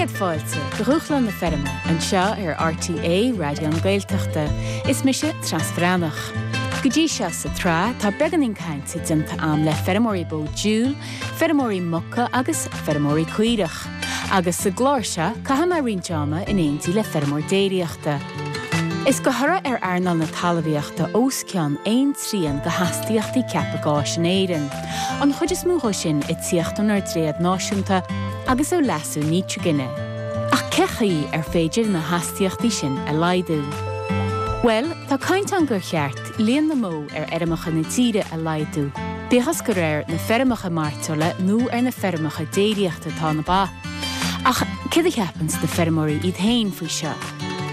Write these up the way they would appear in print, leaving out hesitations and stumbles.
Céad fáilte go Dhúshlán na Feirme anseo ar RTÉ Raidió na Gaeltachta. Is mise Treasa Bhreathnach. Go dtí seo sa tsraith tá beagáinín cainte déanta a'm le feirmeoirí bó diúil, feirmeoirí muca agus feirmeoirí caorach. Agus sa gclár seo caithfidh mé roinnt ama in éindí le feirmeoir déiríochta. Is de thoradh ar earnáil na talmhaíochta os cionn aon trian de hastaíochtaí ceaptha gáis in Éirinn, an chuid is mó dhó sin ag tíocht ónár dtréad náisiúnta agus ó leasú nítrigine. Ach cé chaoi ar féidir na hastaíochtaí sin a laghdú? Bhuel, tá caint ann gur cheart líon na mbó ar fheirmeacha na tíre a laghdú, bíodh is gur ar na feirmeacha mairteola nó ar na feirmeacha déiríochta atá na ba. Ach céard a cheapanns na feirmeoirí iad féin faoi seo?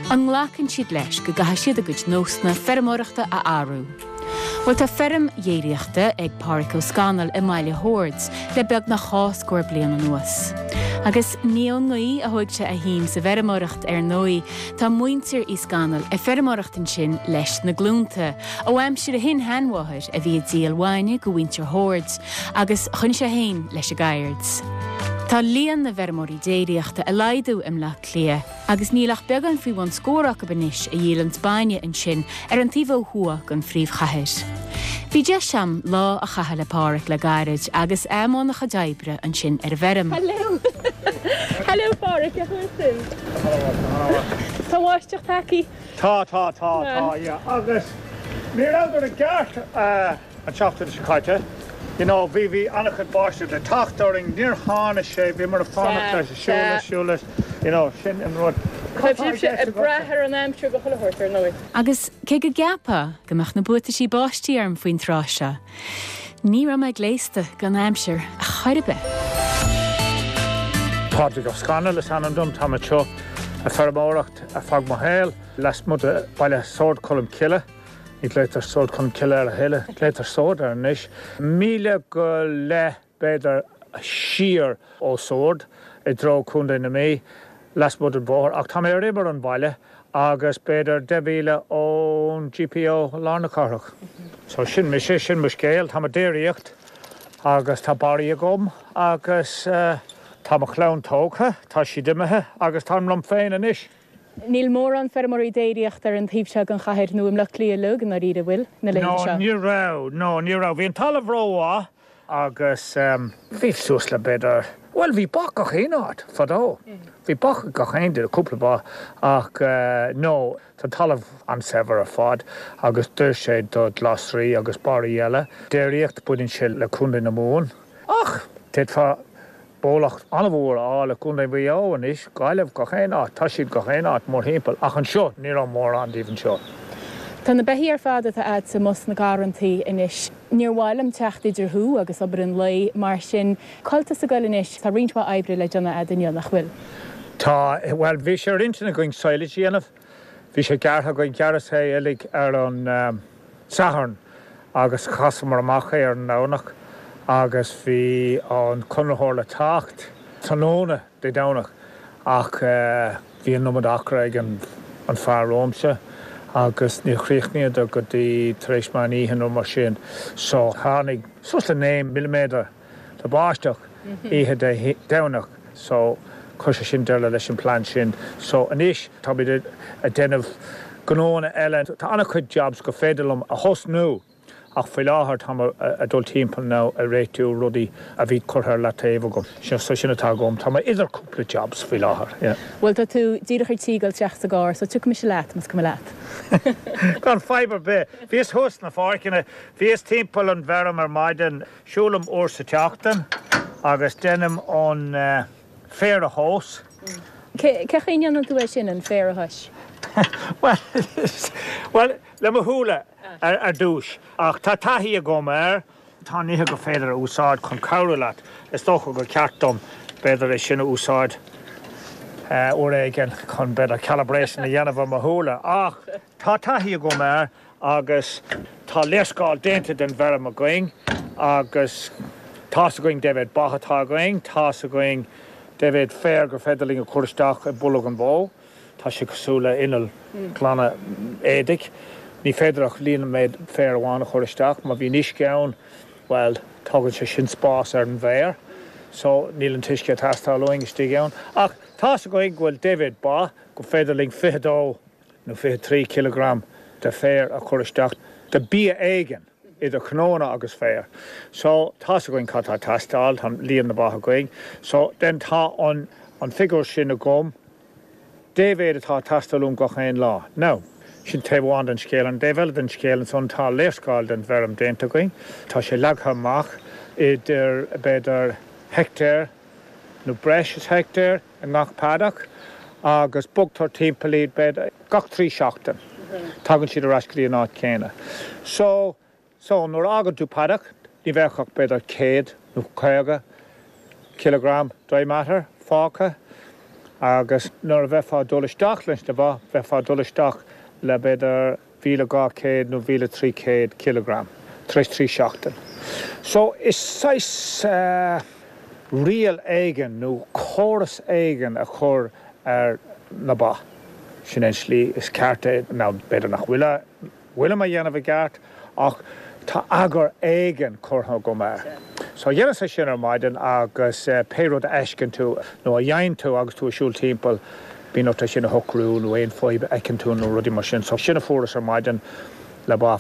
An nglacann siad leis go gcaithfidh siad a gcuid nósanna feirmeoireachta a athrú? Bhuel tá feirm dhéiríochta ag Páraic Ó Scanaill i mBaile Shoird le beagnach dhá scór bliain anuas. Agus ní ón ngaoth a thóig sé a shuim sa bhfeirmeoireacht ar ndóigh, tá muintir Uí Scanaill ag feirmeoireacht ansin leis na glúnta, ó aimsir a shin-sheanmháthair a bhí ag díol bhainne go mhuintir Shoird, agus choinnigh sé féin leis an gceird. Tá líon na bhfeirmeoirí déiríochta ag laghdú i mBleá Cliath agus níl ach beagán faoi bhun scór acu anois a dhíolanns bainne ansin ar an taobh ó thuaidh den phríomhchathair. Bhí deis a'm lá a chaitheamh le Páraic le gairid agus é i mbun a chuid oibre ansin ar an bhfeirm. Hello! Hello Páraic, cén chaoi a bhfuil tú? Tá an bháisteach tagtha. Tá, tá, tá, tá, yeah. Agus ní rabhadar i gceart. An tseachtain seo caite, you know, bhí, bhí an-chuid báisteach le teacht orainn, níor tháinig sé, bhíomar ag fanacht leis, ag siúl leis, siúl leis, you know, sin an rud. Tá sibhse ag brath ar an aimsir go chuile shórt, ar ndóigh. Agus cé go gceapfá go mbeadh na buataisí báistí orm faoin tráth seo, ní raibh mé gléasta don aimsir chor ar bith. Pádraig Ó Scanaill is ainm dom, tá mé anseo ag feirmeoireacht ar feadh mo shaoil, lasmuigh de bhaile Sord Cholm Cille. Ní ghlaotar Sord Cholm Cille air a thuilleadh, glaotar Sord air anois. Míle go leith, b'fhéidir, siar ó Sord i dtreo Contae na Mí, lasmuigh den bhóthar, ach tá mé ar imeall an bhaile agus b'fhéidir 10 mhíle ón GPO i lár na cathrach. So sin mise, sin mo scéal. Táim ag déiríocht agus tá barraí agam agus tá mo chlann tógtha, tá siad imithe agus táim liom féin anois. Níl mórán feirmeoirí déiríochta ar an taobh seo den chathair nó i mBleá Cliath uilig, i ndáiríre, an bhfuil, na laethanta seo? No, ní raibh, no, ní raibh. Bhí an talamh rómhaith agus bhí suas le b'fhéidir, bhuel, bhí ba gach aon áit fadó. Bhí ba ag gach aon duine, cúpla ba, ach no, tá an talamh an-saibhir ar fad agus d'oir sé do ghlasraí agus barraí eile. Déiríocht, baineann sé le Contae na Mumhan ach d'fhéadfá Bólach an-mhór a fháil i gContae Mhaigh Eo anois, Gaillimh, gach aon áit, tá siad gach aon áit mórthimpeall, ach anseo, ní raibh mórán díobh anseo. Tá na beithígh ar fad atá a'dsa amuigh sna garrantaí anois. Níor mhaith liom teacht idir thú agus obair an lae, mar sin, cá bhfuil tusa ag goil anois? Tá roinnt mhaith oibre le déanamh a'd inniu, nach bhfuil? Tá, bhuel, bhí sé ar intinn againn silage a dhéanamh, bhí sé gearrtha againn, ghearras é uilig ar an. Satharn agus chasamar amach é ar an nDomhnach agus bhí an conraitheoir le teacht tráthnóna Dé Domhnach ach bhí an iomad acra ag an fear romhamsa agus níor chríochnaíodar go dtí tar éis meán oíche nó mar sin so tháinig suas le 9 milliméadar de bháisteach oíche Dé Domhnach so chuir sé sin deireadh leis an plean sin. So anois táimid ag déanamh gnóanna eile. Tá an-chuid jobs gur féidir liom a thosnú ach faoi láthair táim ag dul timpeall now ag réitiú rudaí a bhí curtha ar leataobh agam. So sin atá agam. Tá mé idir cúpla jobs faoi láthair, yeah. Bhuel tá tú díreach ar tí dul isteach sa gcarr so tiocfaidh mise leat más cuma leat. Gan fadhb ar bith. Bhíos thuas sna pháirceanna, bhíos timpeall an bhfeirm ar maidin. Siúlaim uair sa tseachtain agus déanaim an féar a thomhas. Cé chaoi a ndéanann tú é sin, an féar a thomhas? Bhuel, le mo shúile ar dtús. Ach tá taithí agam air. Tá nithe gur féidir a úsáid chun cabhrú leat. Is dócha gur ceart dom, b'fhéidir, é sin a úsáid uair éigin chun, b'fhéidir, calibration a dhéanamh ar mo shúile. Ach tá taithí agam air. Agus tá léarscáil déanta den bhfeirm againn agus tá's againn dé mhéad ba atá againn, tá's againn dé mhéad féar gur féidir linn a chur isteach i mbolg an bhó. Tá sé cosúil le inneall glanadh éadaigh. Ní féidir ach líon an méid féar amháin a chur isteach. Má bhíonn uisce ann, bhuel, tógann sé sin spás ar an bhféar. So, níl an t-uisce ag teastáil uainn istigh ann. Ach. Tá's againn go bhfuil dé mhéad ba, gur féidir linn 22 nó 23 cileagram de féar a chur isteach, de bia éigin, idir cnónna agus féar. So, tá's againn cad tá ag teastáil, tá líon na ba againn. So, then tá an an figiúr sin agam, dé mhéad atá ag teastáil uaim gach aon lá. Now, sin taobh amháin den scéal. An taobh eile den scéal ansan, tá léarscáil den bhfeirm déanta againn. Tá sé leagtha amach idir, b'fhéidir, heictéar nó breis is heictéar i ngach paddock agus bogtar timpeall iad b'fhéidir gach 3 seachtain. Tagann siad ar ais go dtí an áit chéanna. So, so nuair a fhágann tú paddock ní bheadh ach b'fhéidir 100 nó 50 kilogram dry matter fágtha agus nuair a bheifeá ag dul isteach leis na ba, bheifeá ag dul isteach le b'fhéidir 1,200 nó 1,300 kilogram tar éis 3 seachtain. So is saghas riail éigin nó córas éigin a chur ar na ba. Sin é an slí is ceart é. Now b'fhéidir nach bhfuil a bhfuilim a dhéanamh i gceart ach tá eagar éigin curtha agam air. So dheineas é sin ar maidin agus pé rud a fheisceann tú nó a dhéanann tú agus tú ag siúl timpeall, bíonn ort é sin a shocrú nó aon fadhb a fheiceann tú nó rudaí mar sin. So sin a fuaireas ar maidin le ba.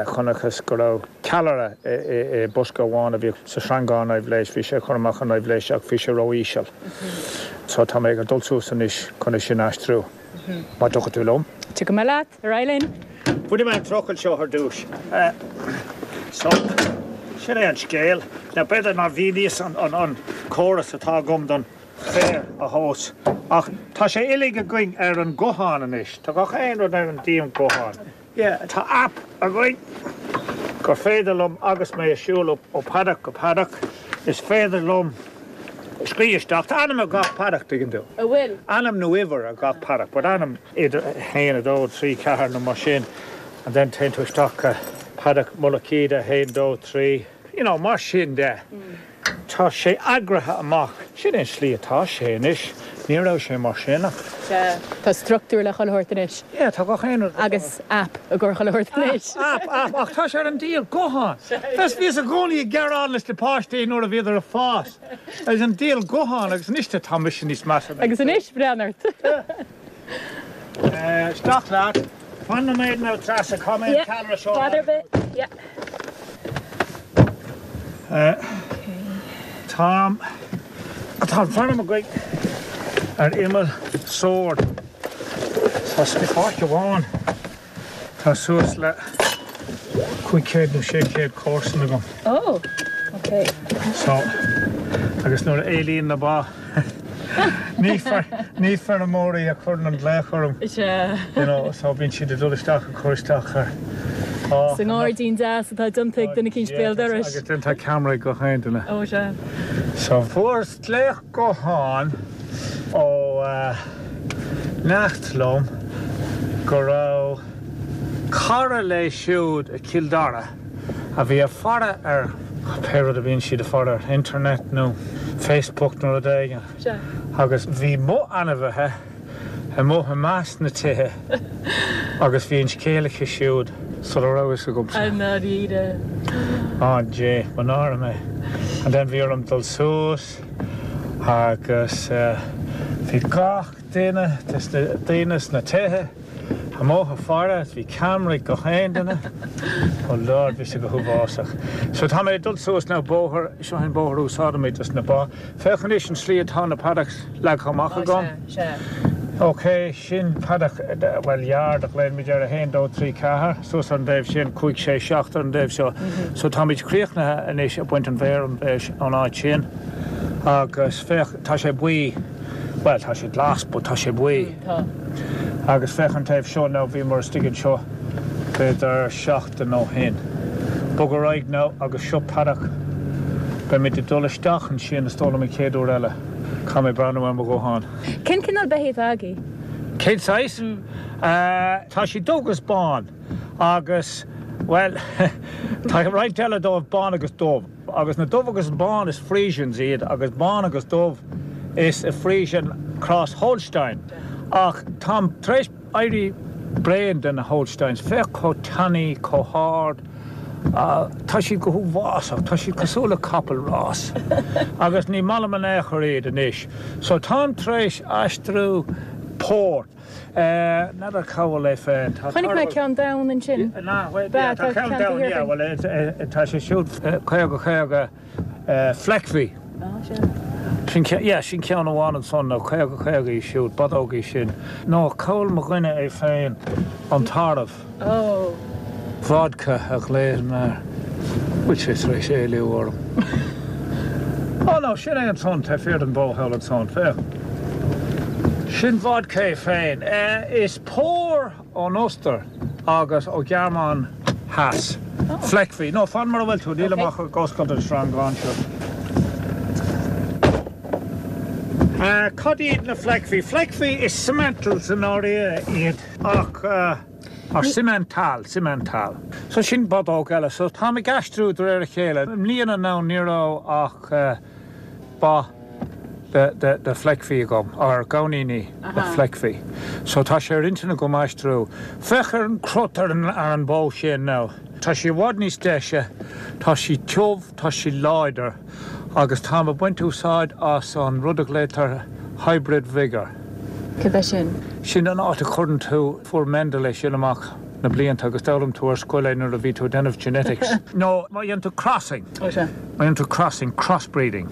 Chonacthas go raibh ceallra i bosca amháin a bhí sa sreangán aibhléis, bhí sé ag cur amach an aibhléis ach bhí sé ró-íseal. So tá mé ag dul suas anois chun é sin a aistriú. Má tiocfaidh tú liom. Tiocfaidh mé leat. Ar aghaidh linn. Bainfidh mé an trucail seo ar dtús. So, sin é an scéal. Now b'fhéidir nár mhíníos an córas atá agam don féar a thomhas ach tá sé uilig againn ar an guthán anois. Tá gach aon rud ar an diabhal guthán. Yeah, tá app againn gur féidir liom agus mé ag siúl ó paddock go paddock, is féidir liom scríobh isteach, tá ainm ar gach paddock, tuigeann tú. An bhfuil? Ainm nó uimhir ar gach paddock, but ainm idir 1, 2, 3, 4 nó mar sin and then téann tú isteach go paddock Mullach Íde 1, 2, 3, you know, mar sin de. Tá sé eagraithe amach. Sin é an slí atá sé anois. Ní raibh sé mar sin ach. Sea. Tá struchtúr le chuile shórt anois. Yeah, tá gach aon rud. Agus app i gcomhair chuile shórt anois. App, app, ach tá sé ar an diabhal guthán. Bheas, bhíos i gcónaí ag gearán leis na páistí nuair a bhíodar ag fás. Agus an diabhal guthán agus anois tá mise níos measa ná. Agus anois, breathnaigh ort. Isteach leat. Fan nóiméad now Treasa, caithfidh mé an ceallra seo a. Fadhb ar bith, yeah. Tá tá an feirm againn ar imeall Sord. Tá páirc amháin tá suas le 500 nó 600 comharsan agam. Oh, ok. So, agus nuair a éalaíonn na ba ní ní feirmeoirí a chuireann an glaoch orm. Sea. You know, so bíonn siad ag dul isteach ag cur isteach ar Sa ngairdín deas atá déanta ag duine eicínt béal dorais. Agus then tá ceamara ag gach aon duine. Ó sea. So fuaireas glaoch gutháin ó neacht liom go raibh cara léi siúd i Cill Dara a bhí ag faire ar pé rud a bhíonn siad ag faire ar internet nó Facebook nó rud éigin agus bhí mo ainmhithe amuigh i measc na tithe agus bhí an scéal aici siúd sula raibh fhios agamsa. I ndáiríre. Á Dé, mo náire mé. And then bhí orm dul suas agus bhí gach duine des na daoine sna tithe amuigh ag faire is bhí ceamara ag gach aon duine. Oh Lord, bhí sé go huafásach. So tá mé ag dul suas now bóthar, seo an bóthar a úsáidimid dos na ba. Féach anois an slí atá na paddocks leagtha amach agam. Ok, sin paddock, bhuel yard a ghlaoimid air, 1, 2, 3, 4, suas ar an dtaobh sin, 5, 6, 7 ar an dtaobh seo. So táimid críochnaithe anois ag baint an bhféir ón áit sin agus féach, tá sé buí, bhuel tá sé glas but tá sé buí. Agus féach an taobh seo now, bhíomar istigh anseo b'fhéidir seachtain ó shin. Bog ar aghaidh now agus seo paddock. Beimid ag dul isteach ansin is dóigh liom an chéad uair eile. Caithfidh mé breathnú ar mo ghuthán. Cén cineál beithígh atá agaibh? Cén saghas? Tá siad dubh agus bán agus, bhuel, tá roinnt eile dóibh bán agus dubh. Agus na dubh agus bán is Friesians iad agus bán agus dubh is Friesian cross Holstein. Ach táim tar éis éirí bréan de na Holsteins. Féach chomh tanaí, chomh hard. Tá siad go huafásach, tá siad cosúil le capall rás. Agus ní maith liom in aon chor iad anois. So táim tar éis aistriú pór. N'fheadar cá bhfuil é féin. Tá Chonaic mé ceann donn ansin. Bea, tá ceann donn, yeah, bhuel tá sé siúd 50 50 Fleckvieh. Sin, yeah, sin ceann amháin ansan, nó 50 50 í siúd, bodóg í sin. Nó cá bhfuil mo dhuine é féin, an tarbh. Oh. Vodka a ghlaoim air. Bhfuil sé tar éis éalú orm? Oh no, sin é ansan, taobh thiar den bhó thall ansan, féach. Sin Vodka é féin. Is pór ón Ostair agus ó Ghearmáin Theas. Fleckvieh. No, fan mar a bhfuil tú, nílim ach ag oscailt an sreangán seo. Cad iad na Fleckvieh? Fleckvieh is Simmentals i ndáiríre iad. Ach, or Simmental, Simmental. So sin bodóg eile. So táim ag aistriú de réir a chéile. I mbliana now ní raibh ach ba de, de, de Fleckvieh agam, or gamhainíní de Fleckvieh. So tá sé ar intinn agam aistriú. Féach ar an crot ar an, ar an bó sin now. Tá sí i bhfad níos deise, tá sí tiubh, tá sí láidir. Agus táim ag baint úsáid as an rud a ghlaotar hybrid vigour. Cad é sin? Sin an áit a chuireann tú, fuair Mendel é sin amach na blianta agus d'fhoghlaim tú ar scoil é nuair a bhí tú ag déanamh genetics. Nó má dhéanann tú crossing, Ó sea. má dhéanann tú crossing, crossbreeding,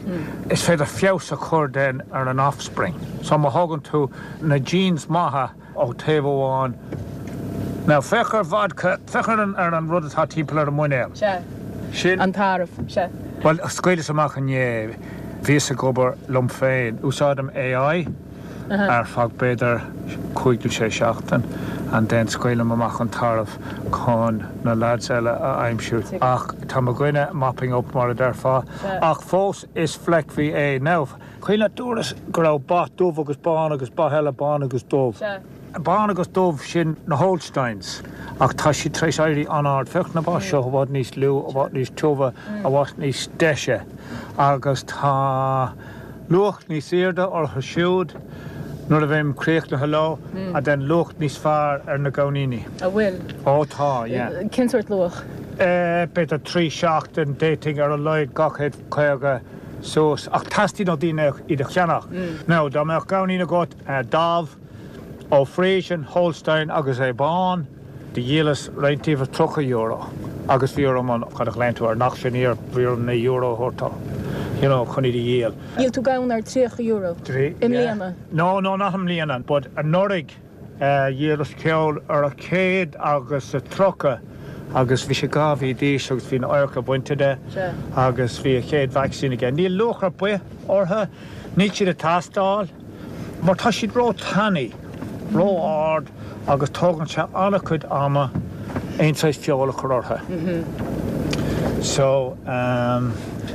is féidir feabhas a chur then ar an offspring. So má thógann tú na genes maithe, Ó taobh amháin. Now, féach ar Vodka, féach ar an, ar an rud atá timpeall ar an muinéal. Sea. Sin. An tarbh. Sea. Bhuel, scaoileas amach inné, bhíos ag obair liom féin. Úsáidim AI ar feadh b'fhéidir cúig nó sé seachtain and then scaoilim amach an tarbh chun na lads eile a aimsiú. Ach tá mo dhuine mopping up mar a déarfá. Ach fós is Fleckvieh é. Now. Cuimhin leat dúras go raibh ba dubh agus bán agus ba eile bán agus dubh. Sea. Bán agus dubh, sin na Holsteins. Ach tá siad tar éis éirí an-ard. Féach na ba seo, i bhfad níos lú, i bhfad níos tiubha, i bhfad níos deise. Agus tá luach níos airde orthu siúd nuair a bheim críochnaithe leo, and then luach níos fearr ar na gamhainíní. An bhfuil? Ó tá, yeah. Cén sórt luach? B'fhéidir 3 seachtain, d'fhéadfainn ar a laghad 250 suas, ach teastaíonn ó daoine iad a cheannach. Now, dá mbeadh gamhainín agat damh ó Friesian, Holstein agus é bán, do dhíolas roinnt díobh ar €30 agus bhí orm an, cad a ghlaonn tú air, an auctioneer, bhí orm €9 a thabhairt dó, you know, chun iad a dhíol. Dhíol tú gamhain ar €30 i mbliana? No, no, not i mbliana, but anuraidh. Dhíolas ceann ar 130 agus bhí sé 2 mhí d'aois agus bhí an adharca bainte de agus bhí a chéad vacsaín aige. Níl luach ar bith orthu, níl siad ag teastáil mar tá siad ró-tanaí, ró-ard agus tógann sé an-chuid ama aon saghas feoil a chur orthu. So, ehm.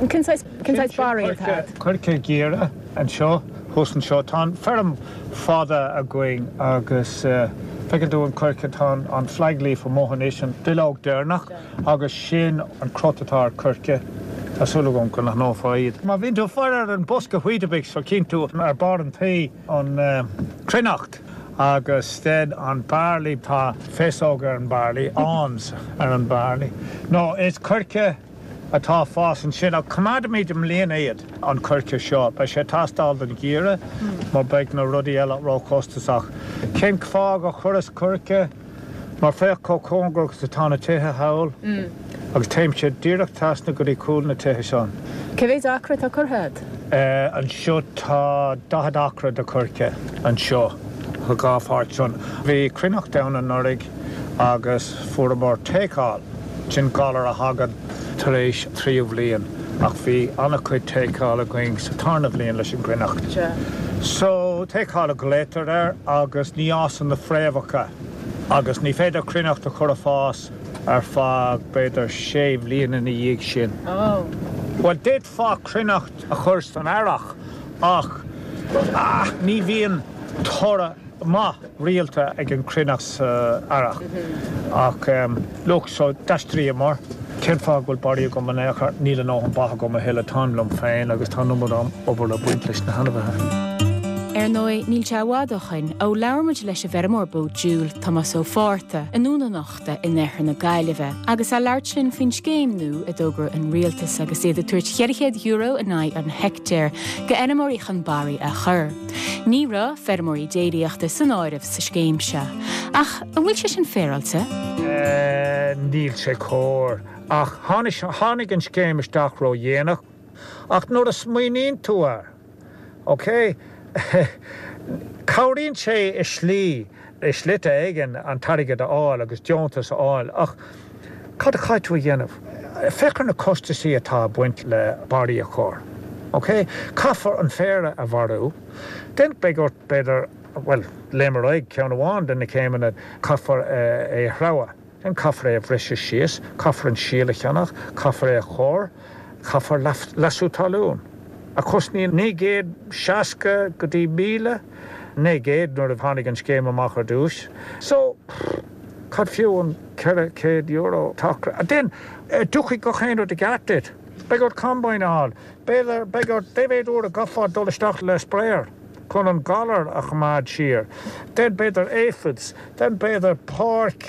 Cén saghas, cén saghas barraí atá agat? Coirce giorra anseo, thuas anseo. Tá an feirm fada againn agus feiceann tú an coirce, tá an flag leaf amuigh anois, an duilleog deireanach agus sin an crot atá ar coirce. Tá súil agam go n-aithneofá iad. Má bhíonn tú ag faire ar an bosca Weetabix so chíonn tú ar barr an tí an cruithneacht agus then an barley, tá féasóg ar an barley, awns ar an barley. No, is coirce. atá ag fás ansin ach coimeádfaimid i mbliana iad, an coirce seo. Beidh sé ag teastáil don gheimhreadh mar beidh na rudaí eile róchostasach. Cén fáth gur chuireas coirce? Mar féach chomh cóngarach is atá na tithe thall agus téimse díreach trasna go dtí cúl na tithe san. Cé mhéid acra atá curtha agat? Anseo tá 40 acra de choirce anseo, sa dhá pháirt san. Bhí cruithneacht ann anuraidh agus fuaireamar take-all. Sin galar a thagann tar éis tríú bhliain ach bhí an-chuid take-all againn sa tarna bhliain leis an gcruithneacht. So, take-all a ghlaotar air agus ní fhásann na fréamhacha agus ní féidir cruithneacht a chur ag fás ar feadh b'fhéidir sé bhliain ina dhiaidh sin. Bhuel, d'fhéadfá cruithneacht a chur san earrach ach ní bhíonn toradh maith rialta ag an chruithneacht sa earrach. Ach look, so d'aistríomar. Cén fáth go bhfuil barraí agam in aon chor? Níl a ndóthain ba agam a thuilleadh, táim liom féin agus tá an iomad obair ag baint leis na hainmhithe. Ar ndóigh, níl sé i bhfad ó shoin ó labhair muid leis an bhfeirmeoir bó diúil, Tomás Ó Fátharta, i nDún an Uchta in oirthear na Gaillimhe, agus é ag labhairt linn faoin scéim nua a d'fhógair an rialtas agus iad ag tabhairt €400 in aghaidh an heictéir go fheirmeoirí chun barraí a chur. Ní raibh feirmeoirí déiríochta san áireamh sa scéim seo. Ach an bhfuil sé sin féaráilte? Níl sé cóir. Ach tháinig an scéim isteach ró-dhéanach. Ach nuair a smaoiníonn tú air, Ok. Cabhraíonn sé i slí, i slite éigin an t-airgead a fháil agus deontas a fháil ach cad a chaithfidh tú a dhéanamh? Féach ar na costasaí atá ag baint le barraí a chur. Ok? Caithfear an féar a mharú. Then beidh ort b'fhéidir, bhuel, léim ar aghaidh ceann amháin de na céimeanna, caithfear é a threabhadh. Then caithfear é a bhriseadh síos, caithfear an síol a cheannach, caithfear é a chur, caithfear leasú talún, a chosnaíonn 960 go dtí 1,000, 900 nuair a tháinig an scéim amach ar dtús. So, cad fiú an €400 tacar? Then, tiocfaidh gach aon rud i gceart duit. Beidh ort combine a fháil, b'fhéidir, beidh ort, dé mhéad uair a gcaithfeá dul isteach le sprayer chun an galar a choimeád siar. Then b'fhéidir aphids, then b'fhéidir páirc,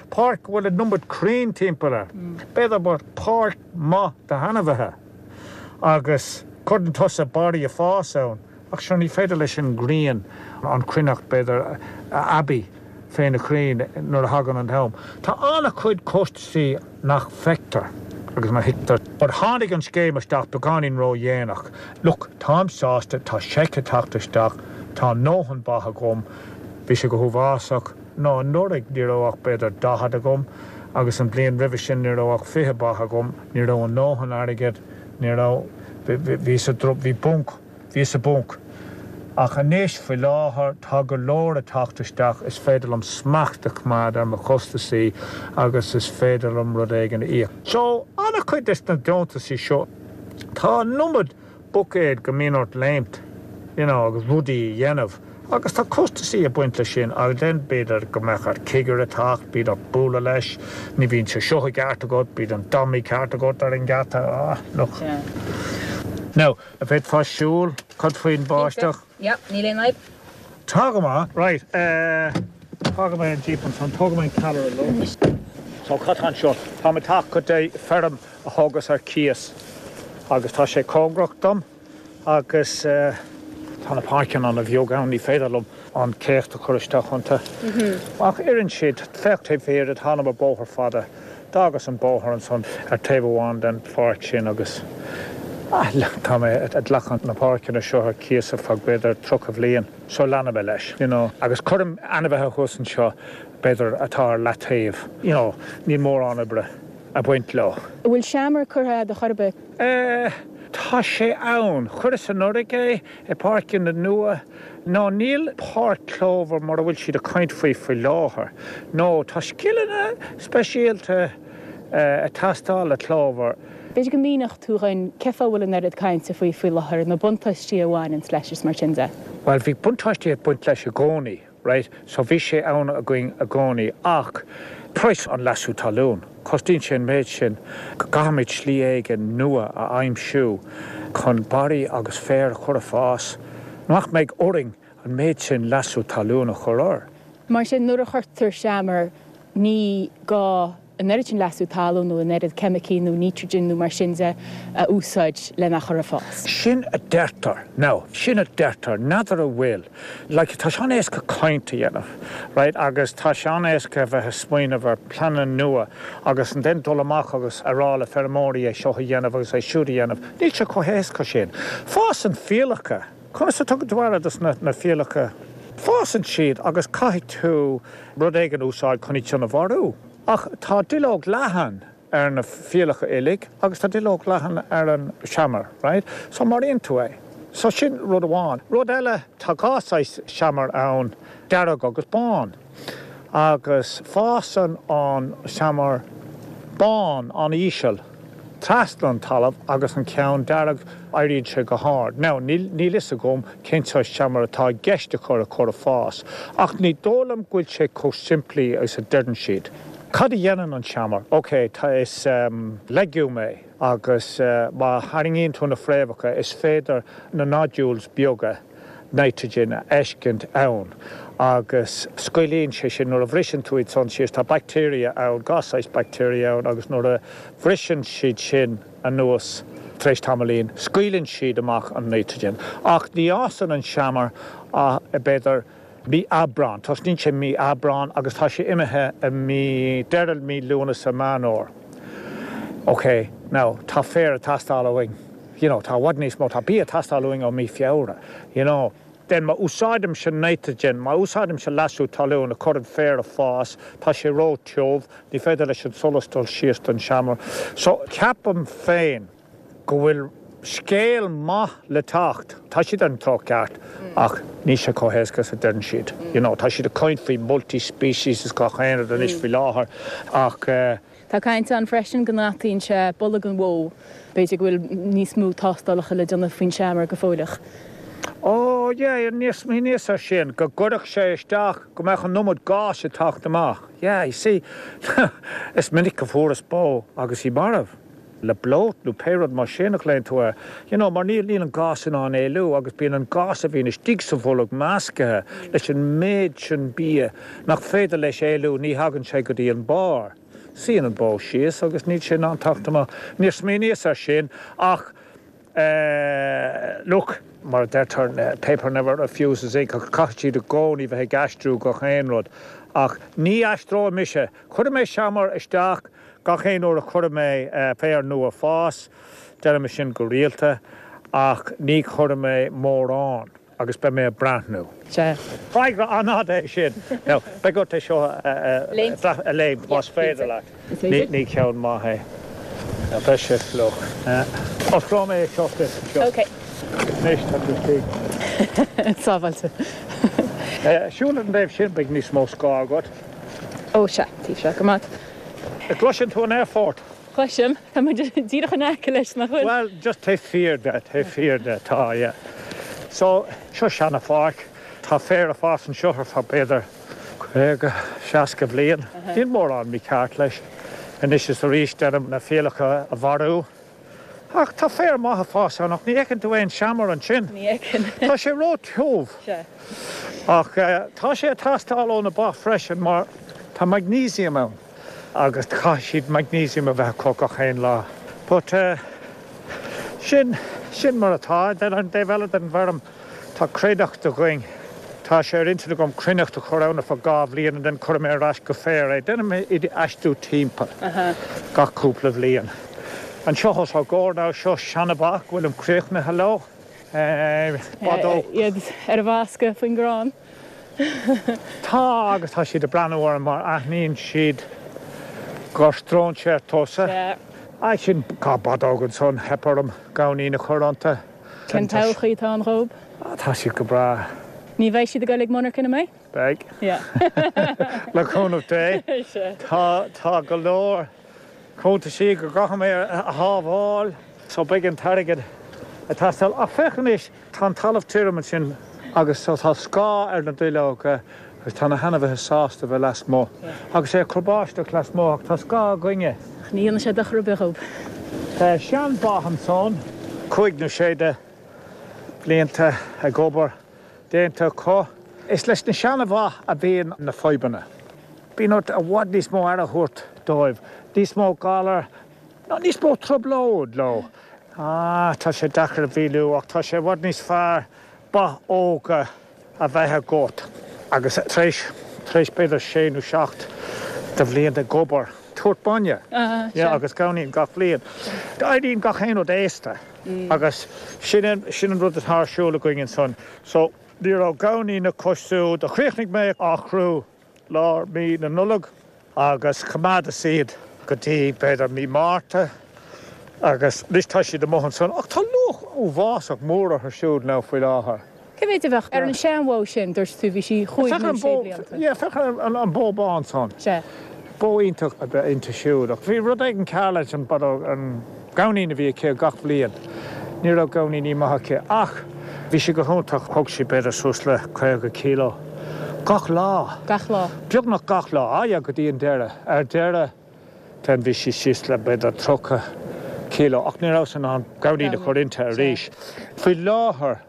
páirc go bhfuil an iomad crainn timpeall air. B'fhéidir páirc maith d'ainmhithe agus cuireann tusa barraí ag fás ann. Ach sure ní féidir leis an ngrian an chruithneacht b'fhéidir a aibí fé na crainn nuair a thagann an t-am. Tá an-chuid costasaí nach bhfeictear agus nach thuigtear. But tháinig an scéim isteach beagáinín ró-dhéanach. Look, táim sásta, tá seic ag teacht isteach, tá a ndóthain ba agam, bhí sé go huafásach. No, anuraidh ní raibh ach b'fhéidir 40 agam agus an bhliain roimhe sin ní raibh ach 20 ba agam, ní raibh a ndóthain airgid, ní raibh, bhí sa, bhí bunc, bhí sa bpunc. Ach anois, faoi láthair, tá go leor ag teacht isteach, is féidir liom smacht a choimeád ar mo chostasaí agus is féidir liom rud éigin a íoc. So, an-chuid des na deontasaí seo, tá an iomad buicéad go mbíonn ort léimt, you know, agus rudaí a dhéanamh. Agus tá costasaí ag baint leis sin agus then b'fhéidir go mbeadh ort cigire teacht, bíonn ort bualadh leis, ní bhíonn sé seo i gceart agat, bíonn an dummy ceart agat ar an ngeata, ah, look. Now, an bhféadfá siúl, cad faoin bháisteach? Yeah, níl aon fhadhb. Tá go maith. Right, eh, fágfaidh mé an Jeep ansan, tógfaidh mé an callaire liom. So, cad tá anseo? Táim ag teacht go dtí feirm a thógas ar cíos agus tá sé cóngarach dom. Agus tá na páirceanna ana bheag ann, ní féidir liom an céacht a chur isteach iontu. Ach oireann siad. Féach taobh thiar de, thánam ar bóthar fada. D'fhágas an bóthar ansan ar taobh amháin den pháirc sin agus tá mé ag glacadh na páirceanna seo ar cíos ar feadh b'fhéidir 30 bhliain. So leanfaidh mé leis, you know. Agus cuirim ainmhithe thuas anseo b'fhéidir atá ar leataobh, you know, níl mórán oibre. ag baint leo. An bhfuil seamair curtha agat chor ar bith? Eh, tá sé ann. Chuireas anuraidh é, i bpáirceanna nua. No, níl páirc clover mar a bhfuil siad ag caint faoi faoi láthair. No, tá scileanna speisialta ag teastáil le clover. B'fhéidir go míneodh tú dhúinn cén fáth a bhfuil an oiread cainte faoi faoi láthair, na buntáistí a bhaineanns leis is mar sin de. Bhuel, bhí buntáistí ag baint leis i gcónaí. Right, so bhí sé ann againn i gcónaí ach praghas an leasú talún, cosnaíonn sé an méid sin go gcaithfimid slí éigin nua a aimsiú chun barraí agus féar a chur ag fás nach mbeidh orainn an méid sin leasú talún a chur air. Mar sin, nuair a chuirtear seamair ní gá an oiread sin leasú talún nó an oiread ceimicí nó nítrigin nó mar sin de a úsáid lena chur ag fás. Sin a deirtear. Now, sin a deirtear. N'fheadar an bhfuil. Like, tá sé an-éasca caint a dhéanamh, right, agus tá sé an-éasca a bheith ag smaoineamh ar pleananna nua agus then dul amach agus a rá le feirmeoirí é seo a dhéanamh agus é siúd a dhéanamh. Níl sé chomh héasca sin. Fásann fiallacha. Conas a tugann tú aire dos na fiallacha? Fásann siad agus caithfidh tú rud éigin a úsáid chun iad sin a mharú. Ach tá duilleog leathan ar na fiallacha uilig agus tá duilleog leathan ar an seamair, right? So maraíonn tú é. So sin rud amháin. Rud eile, tá dhá saghas seamair ann, dearg agus bán. Agus fásann an seamar bán an-íseal trasna an talamh agus an ceann dearg, éiríonn sé go hard. Now, níl fhios agam cén saghas seamair atá i gceist a chur a chur ag fás, ach ní dóigh liom go bhfuil sé chomh simplí agus a deireann siad. Cad a dhéanann an seamar? Ok, tá, is legume é agus má tharraingíonn tú na fréamhacha is féidir na nodules beaga. Nitrogen a fheiscint ann agus scaoileann sé sin nuair a bhriseann tú iad san síos, tá bacteria ann, gach saghas bacteria ann agus nuair a bhriseann siad sin anuas tar éis tamaillín, scaoileann siad amach an nitrogen. Ach ní fhásann an seamair ach b'fhéidir mí Aibreán, tosnaíonn sé mí Aibreán agus tá sé imithe i mí, deireadh mí Lúnasa, Meán Fhómhair. Ok, now, tá féar ag teastáil uainn, you know, tá i bhfad níos mó, tá bia ag teastáil uainn ó mí Feabhra, you know. Then má úsáidimse nitrogen, má úsáidimse leasú talún a chur an féar ag fás, tá sé ró-tiubh, ní féidir leis an solas dul síos don seamair. So, ceapaim féin, go bhfuil scéal maith le teacht. Tá siad ar an treo ceart ach níl sé chomh héasca is a deireann siad. You know, tá siad ag caint faoi multi-species is gach aon rud anois faoi láthair ach eh. Tá caint ann freisin go ndeataíonn sé bolg an bhó. B'fhéidir go bhfuil níos mó tástálacha le déanamh faoin seamair go fóilleach. Oh yeah, níor smaoiníos ar sin, go gcuirfeadh sé isteach, go mbeadh an iomad gáis ag teacht amach. Yeah, you see, is minic a fuaireas bó agus í marbh. le bloat nó pé rud mar sin a ghlaonn tú air, you know, mar níl, níl an gás in ann éalú agus bíonn an gás a bhíonn istigh sa bholg measctha leis an méid sin bia nach féidir leis éalú, ní thagann sé go dtí an barr. Suíonn an bó síos agus níl sé in ann teacht amach. Níor smaoiníos air sin ach eh, look, mar a deirtear, paper never refuses ink ach caithfidh siad i gcónaí bheith ag aistriú gach aon rud ach ní aistreoidh mise, cuirfidh mé seamair isteach, Gach aon uair a chuirfidh mé féar nua fás, déanaim é sin go rialta, ach ní chuirfidh mé mórán agus beidh mé ag breathnú. Sea. Freagra an-fhada é sin. Now, beidh ort é seo a léamh más féidir leat. Ní ceann maith é. Now, beidh sé fliuch. Osclóidh mé é seo duit anseo. Ok. Anois tá tú istigh. Sábháilte. Siúl ar an dtaobh sin, beidh níos mó scáth agat. Ó sea, taobh seo, go maith. Gcloiseann tú an aerfort? Cloisim. Tá muid díreach in aice leis, nach bhfuil? Bhuel, just taobh thiar de, taobh thiar de, tá, yeah. So, seo seana-pháirc. Tá féar ag fás anseo ar feadh b'fhéidir 50, 60 bhliain. Níl mórán mícheart leis. Anois is arís déanaim na fiallacha a mharú. Ach tá féar maith ag fás ann ach ní fheiceann tú aon seamair ansin. Ní fheiceann. Tá sé ró-tiubh. Sea. Ach tá sé ag teastáil ó na ba freisin mar tá magnesium ann agus caithfidh siad magnesium a bheith acu gach aon lá. But sin, sin mar atá. Then an taobh eile den bhfeirm Tá cruithneacht againn. Tá sé ar intinn agam cruithneacht a chur ann ar feadh 2 bhliain and then cuirfidh mé ar ais go féar é. Déanaim iad a aistriú timpeall gach cúpla bhliain. Anseo os ár gcomhair now, seo seana-bha go bhfuilim críochnaithe leo. Ba dóigh. Iad ar a bhfáscadh faoin gcrann. Tá, agus tá siad ag breathnú orm mar aithníonn siad gur stróinséir tusa. Sea. Sin 2 bhadóg ansan, theip orm gamhainín a chur iontu. Cén todhchaí atá ann dhób? Tá siad go breá. Ní bheidh siad ag goil ag monarcha, an mbeidh? Beidh. Le cúnamh Dé. Tá, tá go leor cuntaisí go gcaithfidh mé a shábháil so beidh an t-airgead ag teastáil. Ach féach anois, tá an talamh tirim ansin agus so tá scáth ar na duilleoga Agus tá na hainmhithe sásta a bheith lasmuigh. Agus é ag cur báisteach lasmuigh ach tá scáth againne. Ach ní dhéanfaidh sé dochar ar bith dhób. Tá sean-bha ansan, cúig nó sé de bhlianta ag obair déanta acu. Is leis na seana-bha a bhíonn na fadhbanna. Bíonn ort i bhfad níos mó aire a thabhairt dóibh, níos mó galar, nó níos mó trioblóid leo. Ah, tá sé deacair a mhíniú ach tá sé i bhfad níos fearr ba óga a bheith agat agus tar éis, tar éis b'fhéidir sé nó seacht de bhlianta ag obair, tabhairt bainne, yeah, agus gamhainín gach bliain. Éiríonn gach aon rud aosta agus sin an, sin an rud atá ar siúl againn ansan. So, ní raibh gamhainín acu siúd, chríochnaigh mé á chrú lár mí na Nollag agus choimeádas iad go dtí b'fhéidir mí Márta agus anois tá siad amuigh ansan ach tá luach uafásach mór orthu siúd now faoi láthair. Cé mhéid a bheadh ar an seanbhó sin, dúirt tú, bhí sí chúig nó sé blianta. Yeah, féach ar an bó bán san. Sea. Bó iontach ab ea inti siúd ach bhí rud éigin cearr leis an an gamhainín a bhí aici gach bhliain. Ní raibh gamhainíní maith aici ach bhí sí go hiontach, thug sí b'fhéidir suas le 50 kilo gach lá. Gach lá? Beagnach gach lá, ah yeah, go dtí an deireadh. Ar deireadh then bhí sí síos le b'fhéidir 30 kilo ach ní rabhas in ann gamhainín a chur inti arís. Faoi láthair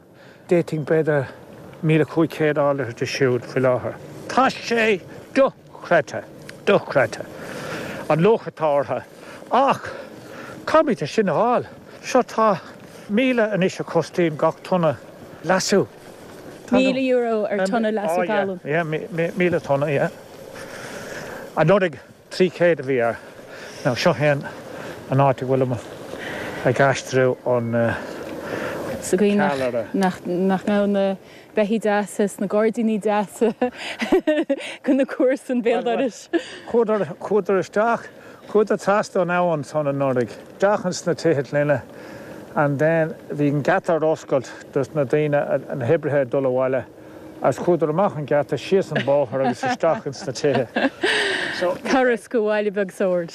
d'fhéadfainn b'fhéidir. 1,500 a fháil de siúd faoi láthair. Tá sé dochreidte, dochreidte, an luach atá orthu. Ach caithfimid é sin a fháil. Seo tá 1,000 anois a chostaíonn gach tonna leasú. €1,000 ar tonna leasú talún. Yeah, 1,000 tonna, yeah. Anuraidh 300 a bhí air. Now seo é an áit a bhfuilim ag aistriú an Sa gcaoi nach nach mbeadh na beithígh deasa is na gairdíní deasa go na comharsain béal dorais. Chuadar, chuadar isteach, chuadar trasna an abhainn ansan anuraidh, isteach ins na tithe clainne and then bhí an geata ar oscailt dos na daoine, na hoibrithe ag dul abhaile. Agus chuadar amach an geata, síos an bóthar agus isteach ins na tithe. So. Turas go bhaile beag Sord.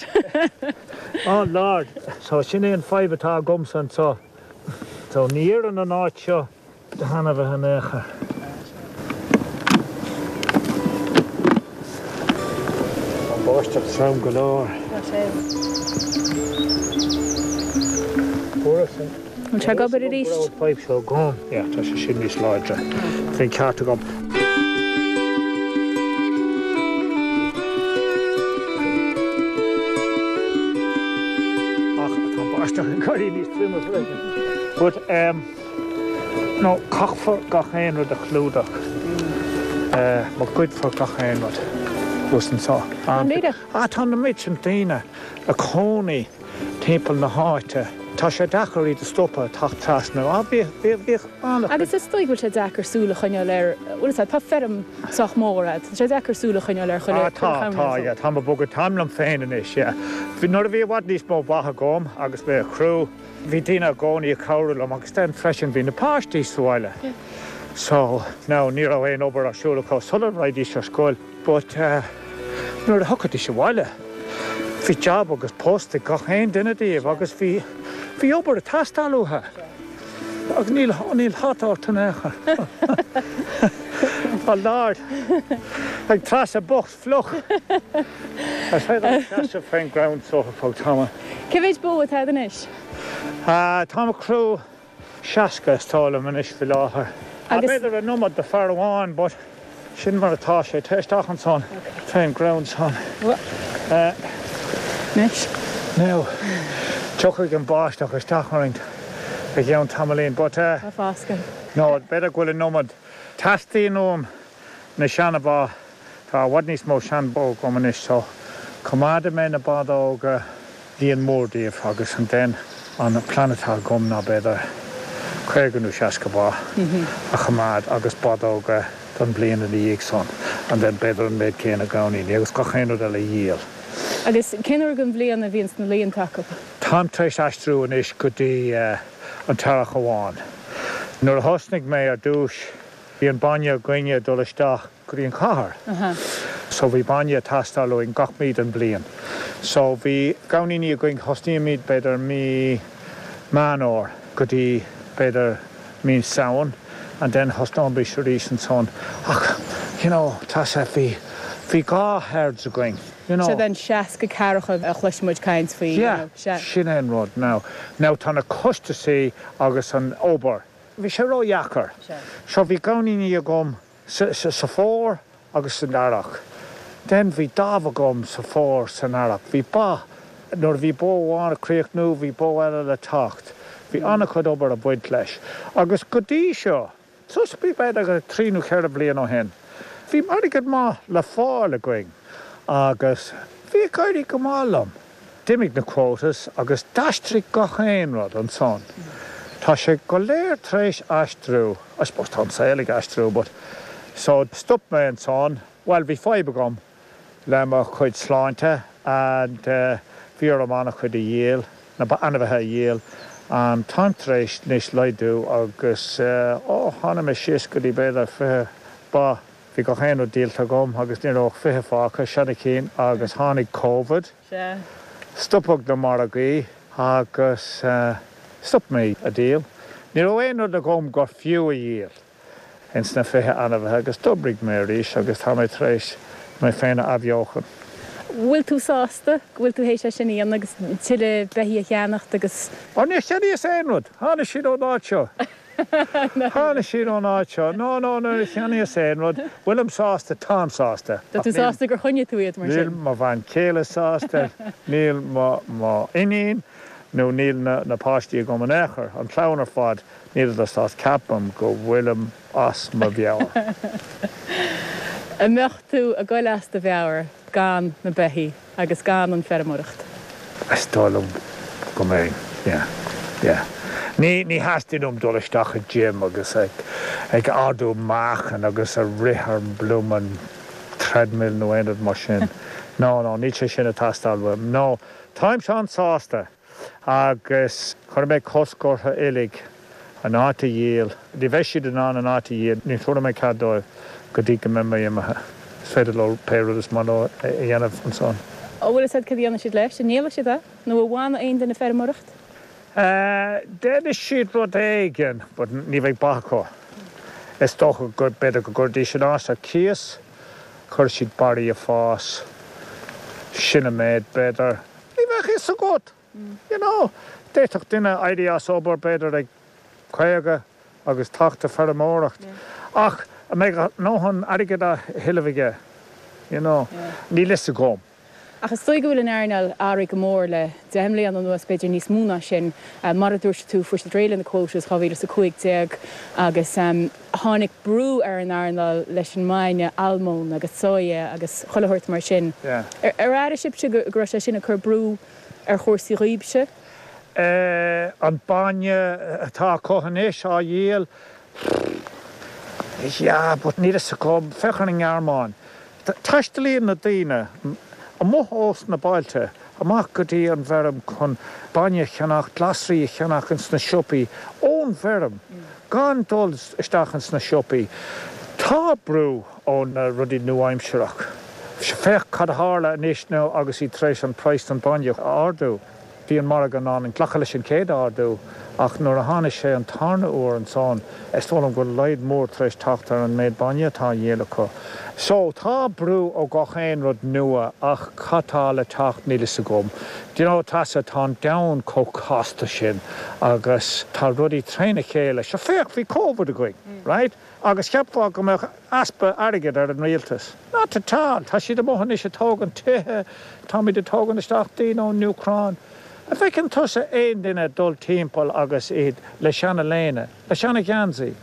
Oh Lord! So sin é an fadhb atá agamsa anseo. So ní oireann an áit seo do ainmhithe in aon chor. Tá an bháisteach trom go leor. Tá sé. Fuaireas an. Bhfuil sé ag obair arís? Go raibh an fadhb seo agam. Yeah, tá sé sin níos láidre. Bhí an ceart agam. Ach tá an báisteach ag éirí níos troime freisin. But, um, no, caithfear gach aon rud a chlúdach. Eh, má goidfear gach aon rud thuas anseo. Ah, tá na méid sin daoine ag cónaí. timpeall na háite. Tá sé deacair iad a stopadh ag teacht trasna. Á, bhíodh, bhíodh, bhíodh an-chuid. Agus is dóigh go bhfuil sé deacair súil a choinneáil ar, bhfuil fhios a'd, tá feirm sách mór a'd, tá sé deacair súil a choinneáil ar chuile, Á, tá, chuile tá, chamra yeah, táim ag bogadh, táim liom féin anois, yeah. Bhí, nuair a bhí i bhfad níos mó ba agam agus mé ag crú, bhí daoine i gcónaí ag cabhrú liom agus then freisin bhí na páistí sa bhaile. So, now ní raibh aon obair ar siúl acu sula raghaidís ar scoil. But nuair a thiocfaidís abhaile, bhí jab agus post ag gach aon duine díobh agus bhí, bhí obair ag teastáil uathu. Agus níl, níl hata ort in aon chor. Oh Lord! Beidh Treasa bocht fliuch! Is féidir liom seasamh fén gcrann so ar feadh tamaill. Cé mhéid bó atá agat anois? Táim ag crú. 60 is dóigh liom anois faoi láthair. Agus. B'fhéidir an iomad do fear amháin but sin mar atá sé. Téigh isteach ansan fén gcrann san. Anois. Now, tiocfaidh an báisteach isteach orainn i gceann tamaillín but. Tá foscadh. No, b'fhéidir go bhfuil an iomad. Teastaíonn uaim na seana-bha, tá i bhfad níos mó sean-bhó agam anois so coimeádfaidh mé na ba óga. líon mór díobh agus and then an plean atá agam ná b'fhéidir 50 nó 60 ba a choimeád agus ba óga don bhliain ina dhiaidh san and then b'fhéidir an méid céanna gamhainíní agus gach aon rud eile a dhíol. Agus cén uair den bhliain a bhíonns na laethanta acu? Táim tar éis aistriú anois go dtí an t-earrach amháin. Nuair a thosnaigh mé ar dtúis bhí an bainne againne ag dul isteach go dtí an chathair. So bhí bainne ag teastáil uainn gach mí den bhliain. So bhí gamhainíní againn, thosnaímid b'fhéidir mí Meán Fhómhair go dtí b'fhéidir mí Samhain and then thosnóimis arís ansan. Ach you know tá sé, bhí, bhí 2 herds againn, you know. Siad an 60 ceathracha a chloiseann muid caint faoi, you know, sea. Yeah, sin é an rud now. Now tá na costasaí agus an obair, bhí sé ródheacair. So bhí gamhainíní agam sa fómhar agus san earrach. Then bhí dáimh agam sa fómhar san earrach. Bhí ba, nuair a bhí bó amháin ag críochnú bhí bó eile le teacht. Bhí an-chuid obair ag baint leis. Agus go dtí seo, suas go b'fhéidir trí nó cheithre bhliain ó shin, bhí airgead maith le fáil againn agus bhí ag éirí go maith liom. D'imigh na quotas agus d'aistrigh gach aon rud ansan. Tá sé go léir tar éis aistriú, I suppose tá an saol ag aistriú but, so stop mé ansan, bhuel bhí fadhb agam le mo chuid sláinte and bhí orm an-chuid a dhíol, na ainmhithe a dhíol and táim tar éis anois laghdú agus oh tháinig mé síos go dtí b'fhéidir 20 ba. Bhí gach aon rud díolta agam agus ní raibh ach 20 fágtha, seana chinn, agus tháinig Covid, stopadh na margaí agus stop mé a díol. Ní raibh aon rud agam gur fiú a dhíol ins na 20 ainmhithe agus d'oibrigh mé arís agus tá mé tar éis mé féin a athbheochan. Bhfuil tú sásta go bhfuil tú théis é sin a dhéanamh agus tuilleadh beithígh a cheannacht agus. Ó níor cheannaíos aon rud, tháinig siad ón áit seo. Tháinig siad ón áit seo. No, no, níor cheannaíos aon rud. Bhfuilim sásta? Táim sásta. Tá tú sásta gur choinnigh tú iad mar sin? Níl mo bhean chéile sásta, níl mo, mo iníon nó níl na, na páistí agam in aon chor, an chlann ar fad, níleadar sásta. Ceapaim go bhfuilim as mo mheabhair. An mbeadh tú ag goil as do mheabhair gan na beithígh? Agus gan an feirmeoireacht. Is dóigh liom go mbeinn, yeah, yeah. Ní, ní theastaíonn uaim dul isteach i gym agus ag, ag ardú meáchan agus ag rith ar an bloomin' treadmill nó aon rud mar sin. No, no, níl sé sin ag teastáil uaim. No, táimse an-sásta. Agus chuir mé cosc orthu uilig an áit a dhíol. Ní bheidh siad in ann an áit a dhíol, ní thabharfaidh mé cead dóibh go dtí go mbeidh mé imithe. Is féidir leo pé rud is maith leo a dhéanamh ansan. An bhfuil fhios agat cad a dhéanfaidh siad leis? An ndíolfaidh siad é? Nó an bhfanfaidh aon duine ag feirmeoireacht? Déanfaidh siad rud éigin, but ní bheidh ba acu. Is dócha go, b'fhéidir go gcuirfidís an áit ar cíos, cuirfidh siad barraí ag fás, sin an méid, b'fhéidir. Ní bheadh fhios agat, you know. D'fhéadfadh duine éirí as obair b'fhéidir ag 50 agus teacht ag feirmeoireacht ach an mbeidh a ndóthain airgid á thuilleamh aige, you know. Níl fhios agam. Ach is dóigh go bhfuil an earnáil athraithe go mór le 10 mbliana anuas, b'fhéidir níos mó ná sin. Mar a dúirt tú, fuair siad réidh le na quotas 2015 agus tháinig brú ar an earnáil leis an mbainne almóinn agus soya agus chuile shórt mar sin. Ar airigh sibhse go raibh sé sin ag cur brú ar chúrsaí dhaoibhse? An bainne atá acu anois á dhíol, yeah, but níl fhios agam. Féach ar an nGearmáin. Taistealaíonn na daoine amuigh ós na bailte amach go dtí an bhfeirm chun bainne a cheannach, glasraí a cheannach ins na siopaí ón bhfeirm, gan dul isteach ins na siopaí. Tá brú ó na rudaí nua-aimsearach. Féach cad a tharla anois now agus iad tar éis an praghas don bainne a ardú. Bhí an margadh in ann glacadh leis an chéad ardú ach nuair a tháinig sé an tarna uair ansan, is dóigh liom go bhfuil laghad mór tar éis teacht ar an méid bainne atá á dhíol acu. So, tá brú ó gach aon rud nua ach cad tá le teacht níl fhios agam. Do you know, Treasa, tá an domhan chomh casta sin agus tá rudaí tréna chéile. Sure féach, bhí Covid againn, right? Agus cheapfá go mbeadh easpa airgid ar an rialtas. Not at all! Tá siad amuigh anois ag tógaint tithe, táimid ag tógaint isteach daoine ón Úcráin. An bhfeiceann tusa aon duine ag dul timpeall agus iad le seana-léine, le seana-gheansaí,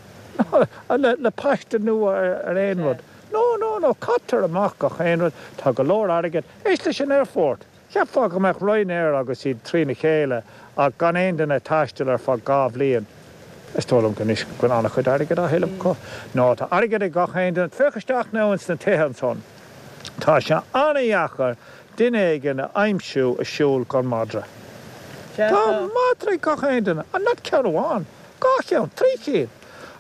le le paiste nua ar aon rud? No, no, no, caitear amach gach aon rud, tá go leor airgid. Éist leis an aerfort! Cheapfá go mbeadh Ryanair agus iad trína chéile ach gan aon duine ag taisteal ar feadh 2 bhliain. Is dóigh liom go anois go bhfuil an-chuid airgid á thuilleamh acu. No, tá airgead ag gach aon duine. Féach isteach now ins na tithe ansan. Tá sé an-dheacair duine éigin a aimsiú ag siúl gan madra. Tá madra ag gach aon duine. And not ceann amháin, 2 cheann, 3 chinn.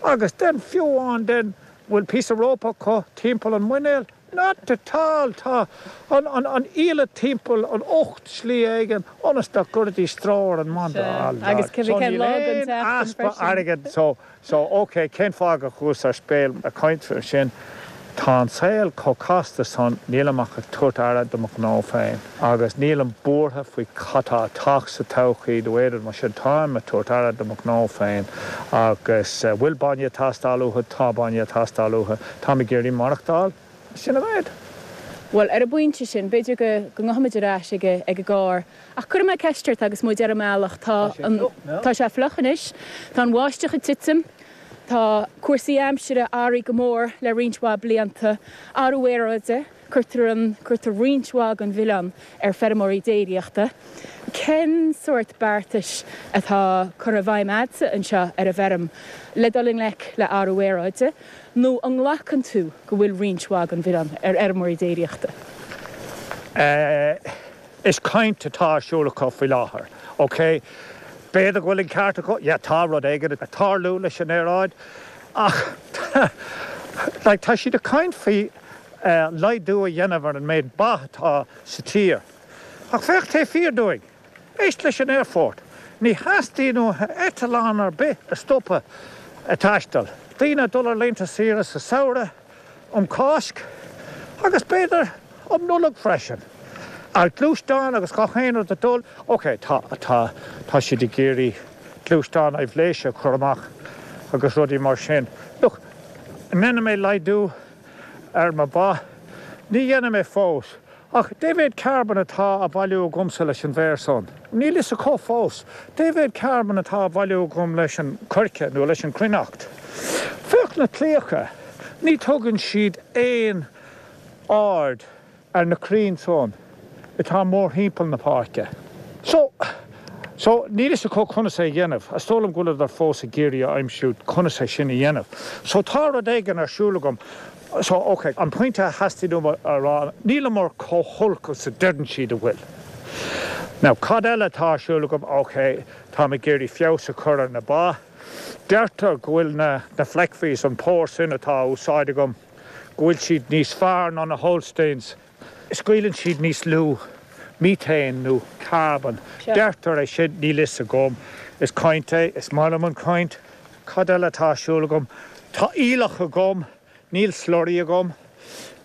Agus then fiú amháin then bhfuil píosa rópa acu timpeall an muinéil. Not at all! Tá an iallait timpeall an ucht slí éigin ionas nach gcuirfidís stró ar an madra. Sea, agus So cén níl lá den aon tseachtain easpa freisin. airgid so, so ok, cén fáth go chuas ar speil ag caint faoi sin? Tá an saol chomh casta san, nílim ach ag tabhairt aire do mo ghnó féin agus nílim buartha faoi cad tá ag teacht sa todhchaí nó aon rud mar sin, táim ag tabhairt aire do mo ghnó féin agus bhfuil bainne ag teastáil uathu? Tá bainne ag teastáil uathu. Táim ag iarraidh maireachtáil. Sin an méid. Bhuel, ar an bpointe sin, b'fhéidir go go ngabhfaimid ar ais ag ag an gcarr. Ach cuirfidh mé ceist ort agus muid ar an mbealach. Tá an, tá sé fliuch anois. Tá an bháisteach ag titim. Tá cúrsaí aimsire athraithe go mór le roinnt mhaith blianta. Athrú aeráide, cuirtear an, cuirtear roinnt mhaith den mhilleán ar feirmeoirí déiríochta. Cén sórt beartais atá curtha i bhfeidhm a'dsa anseo ar an bhfeirm le dul i ngleic le athrú aeráide? Nó an nglacann tú go bhfuil roinnt mhaith den mhilleán ar fheirmeoirí déiríochta? Is caint atá ar siúl acu faoi láthair. Ok, b'fhéidir go bhfuil an ceart acu, yeah, tá rud éigin ag tarlú leis an aeráid, ach like tá siad ag caint faoi laghdú a dhéanamh ar an méid ba atá sa tír. Ach féach taobh thiar dúinn! Éist leis an aerfort. Ní theastaíonn uathu eitleán ar bith a stopadh ag taisteal. Daoine ag dul ar laethanta saoire sa samhradh, um Cháisc agus b'fhéidir um Nollaig freisin. Ar ghluaisteáin agus gach aon rud ag dul. Ok, tá, tá, tá siad ag iarraidh gluaisteáin aibhléise a chur amach. agus rudaí mar sin. Look, an ndéanfaidh mé laghdú ar mo ba? Ní dhéanfaidh mé fós. Ach dé mhéad carbón atá á bhailiú agamsa leis an bhféar san? Níl fhios acu fós. Dé mhéad carbón atá á bhailiú agam leis an coirce nó leis an cruithneacht? Féach na claíocha, ní tugann siad aon aird ar na crainn san atá mórthimpeall na páirce. So, so, níl fhios acu conas é a dhéanamh. Is dóigh liom go bhfuileadar fós ag iarraidh a aimsiú conas é sin a dhéanamh. So tá rud éigin ar siúl agam. So, ok, an pointe a theastaigh uaim a rá, níleamar chomh holc is a deireann siad a bhfuil. Now, cad eile atá ar siúl agam? Ok, táim ag iarraidh feabhas a chur ar na ba. Deirtear go bhfuil na, na Fleckviehs, an pór sin atá á úsáid agam, go bhfuil siad níos fearr ná na Holsteins. Scaoileann siad níos lú methane nó carbon. Deirtear é sin, níl fhios agam. Is caint é, is maith liom an chaint. Cad eile atá ar siúl agam? Tá aoileach agam. Níl slurry agam.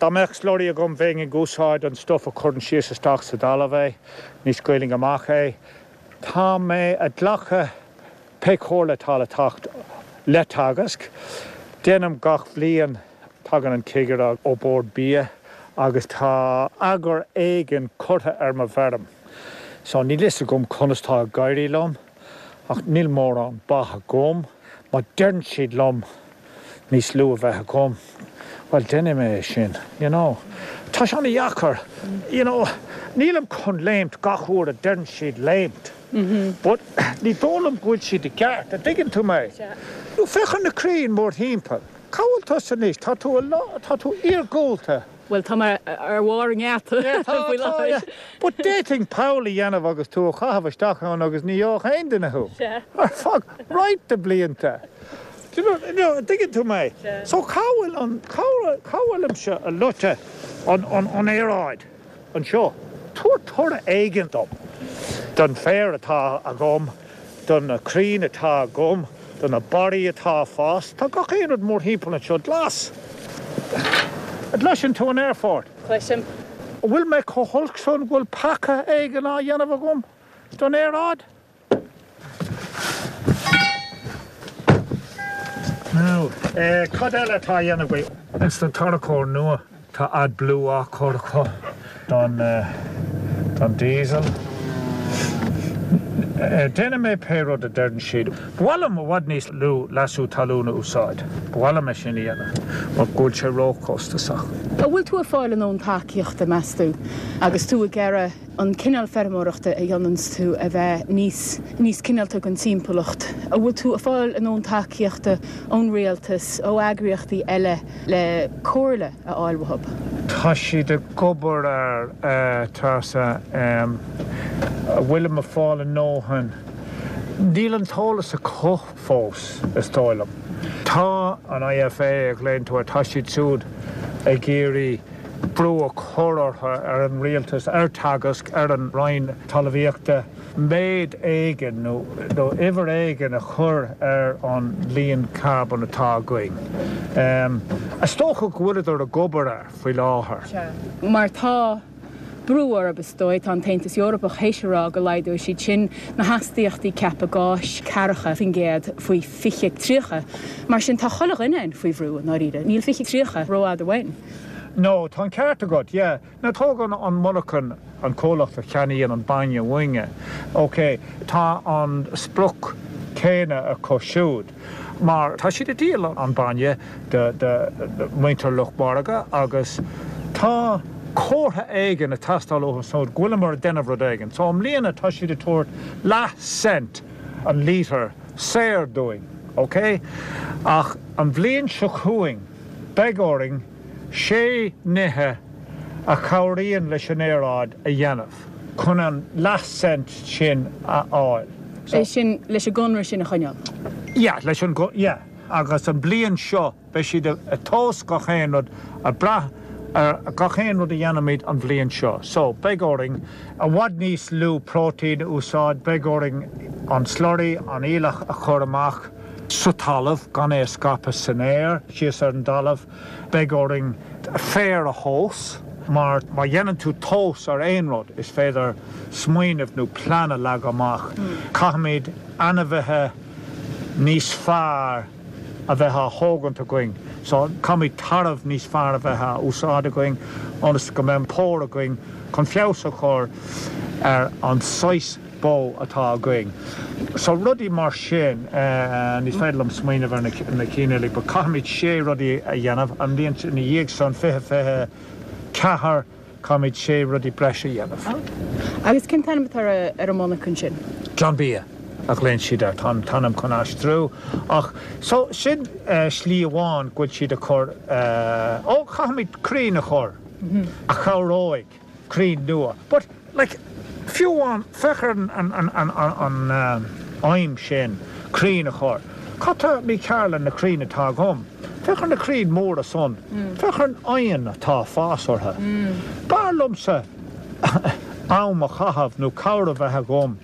Dá mbeadh slurry agam bheinn ag úsáid an stuff a chuireann síos isteach sa dtalamh é. Ní scaoilfinn amach é. Tá mé ag glacadh pé comhairle atá le teacht le Teagasc. Déanaim gach bhliain, tagann an cigire ó Bord Bia agus tá eagar éigin curtha ar mo bhfeirm. So níl fhios agam conas tá ag éirí liom ach níl mórán ba agam. Má deireann siad liom níos lú a bheith agam, bhuel, déanfaidh mé é sin, you know. Tá sé ana-dheacair, you know, nílim chun léimt gach uair a deireann siad léimt, but ní dóigh liom go bhfuil siad i gceart, an dtuigeann tú mé? Nó féach ar na crainn mórthimpeall, cá bhfuil tusa anois? Tá tú, tá tú iargúlta. Bhuel, tá mé ar bharr an ngeata faoi láthair. But d'fhéadfainn poll a dhéanamh agus tú a chaitheamh isteach ann agus ní gheobhadh aon duine thú. Ar feadh roinnt de blianta. Do you know, an dtuigeann tú mé? So cá bhfuil an, cá bhfuilimse ag loiceadh an aeráid anseo? Tabhair toradh éigin dom. Don féar atá agam. Do na crainn atá agam, do na barraí atá ag fás, tá gach aon rud mórthimpeall anseo glas. An gcloiseann tú an aerfort? Cloisim. An bhfuil mé chomh holc san go bhfuil peaca éigin á dhéanamh agam don aeráid? Now, cad eile atá á dhéanamh agaibh? Ins na tarracóir nua. Tá AdBlue á chur acu don don diesel. Déanfaidh mé pé rud a deireann siad. Ba mhaith liom i bhfad níos lú leasú talún a úsáid. Ba mhaith liom é sin a dhéanamh mar go bhfuil sé róchostasach. An bhfuil tú ag fáil a ndóthain tacaíochta, meas tú, agus tú ag iarraidh an cineál feirmeoireachta a dhéananns tú a bheith níos níos cineálta don timpeallacht? An bhfuil tú ag fáil a ndóthain tacaíochta ón rialtas, ó eagraíochtaí eile le comhairle a fháil uathu? Tá siad ag obair air, a Treasa. An bhfuilim ag fáil a ndóthain? Níl an t-eolas acu fós, is dóigh liom. Tá an IFA a ghlaonn tú air, tá siad siúd ag iarraidh brú a chur orthu, ar an rialtas, ar Teagasc, ar an Roinn Talmhaíochta, méid éigin nó uimhir éigin a chur ar an líon carbóin atá againn. Is dócha go bhfuileadar ag obair air faoi láthair. Sea. Mar tá brú orthu, is dóigh. Tá an tAontas Eorpach théis a rá go laghdóidh siad sin na hastaíochtaí ceaptha gáis 40% faoi 2030. Mar sin tá chuile dhuine faoi bhrú, i ndáiríre. Níl 2030 rófhada uainn. No, tá an ceart agat, yeah. Now tóg an monarchan, an comhlacht a cheannaíonn an bainne uainne, ok, tá an sprioc céanna acu siúd mar tá siad ag díol an bainne do mhuintir lucht margaidh agus tá comhartha éigin ag teastáil uathu siúd go bhfuileamar ag déanamh rud éigin. So i mbliana tá siad ag tabhairt leath cent an lítear saor dúinn, ok? Ach an bhliain seo chugainn beidh orainn sé nithe a chabhraíonn leis an aeráid a dhéanamh chun an leath cent sin a fháil. So. É sin leis an gconradh sin a choinneáil? Yeah, leis an, yeah. Agus an bhliain seo beidh siad ag tomhas gach aon rud, ag brath ar gach aon rud a dhéanaimid an bhliain seo. So, beidh orainn i bhfad níos lú próitéin a úsáid, beidh orainn an slurry, an aoileach a chur amach sa talamh, gan é a scaipeadh san aer, síos ar an dtalamh. Beidh orainn féar a thomhas, mar má dhéanann tú tomhas ar aon rud, is féidir smaoineamh nó plean a leagadh amach. Caithfimid ainmhithe níos fearr. a bheith á thógaint againn. So caithfimid tarbh níos fearr a bheith á úsáid againn ionas go mbeidh pór againn chun feabhas a chur ar an saghas bó atá againn. So rudaí mar sin, ní féidir liom smaoineamh ar na cinn uilig but caithfimid sé rudaí a dhéanamh. An bhliain ina dhiaidh san, 2024, Caithfimid sé rudaí breise a dhéanamh. Agus cén t-ainm atá ar an monarcha sin? Glanbia a ghlaonn siad air. Tá an t-ainm chun aistriú ach so sin slí amháin go bhfuil siad ag cur, ó caithfimid crainn a chur a chabhróidh, crainn nua. But like fiú amháin féach ar an aidhm sin, crainn a chur. Cad tá mícheart le na crainn atá agam? Féach ar na crainn mhóra san. Féach ar an oigheann atá ag fás orthu. B'fhearr liomsa am a chaitheamh nó cabhair a bheith agam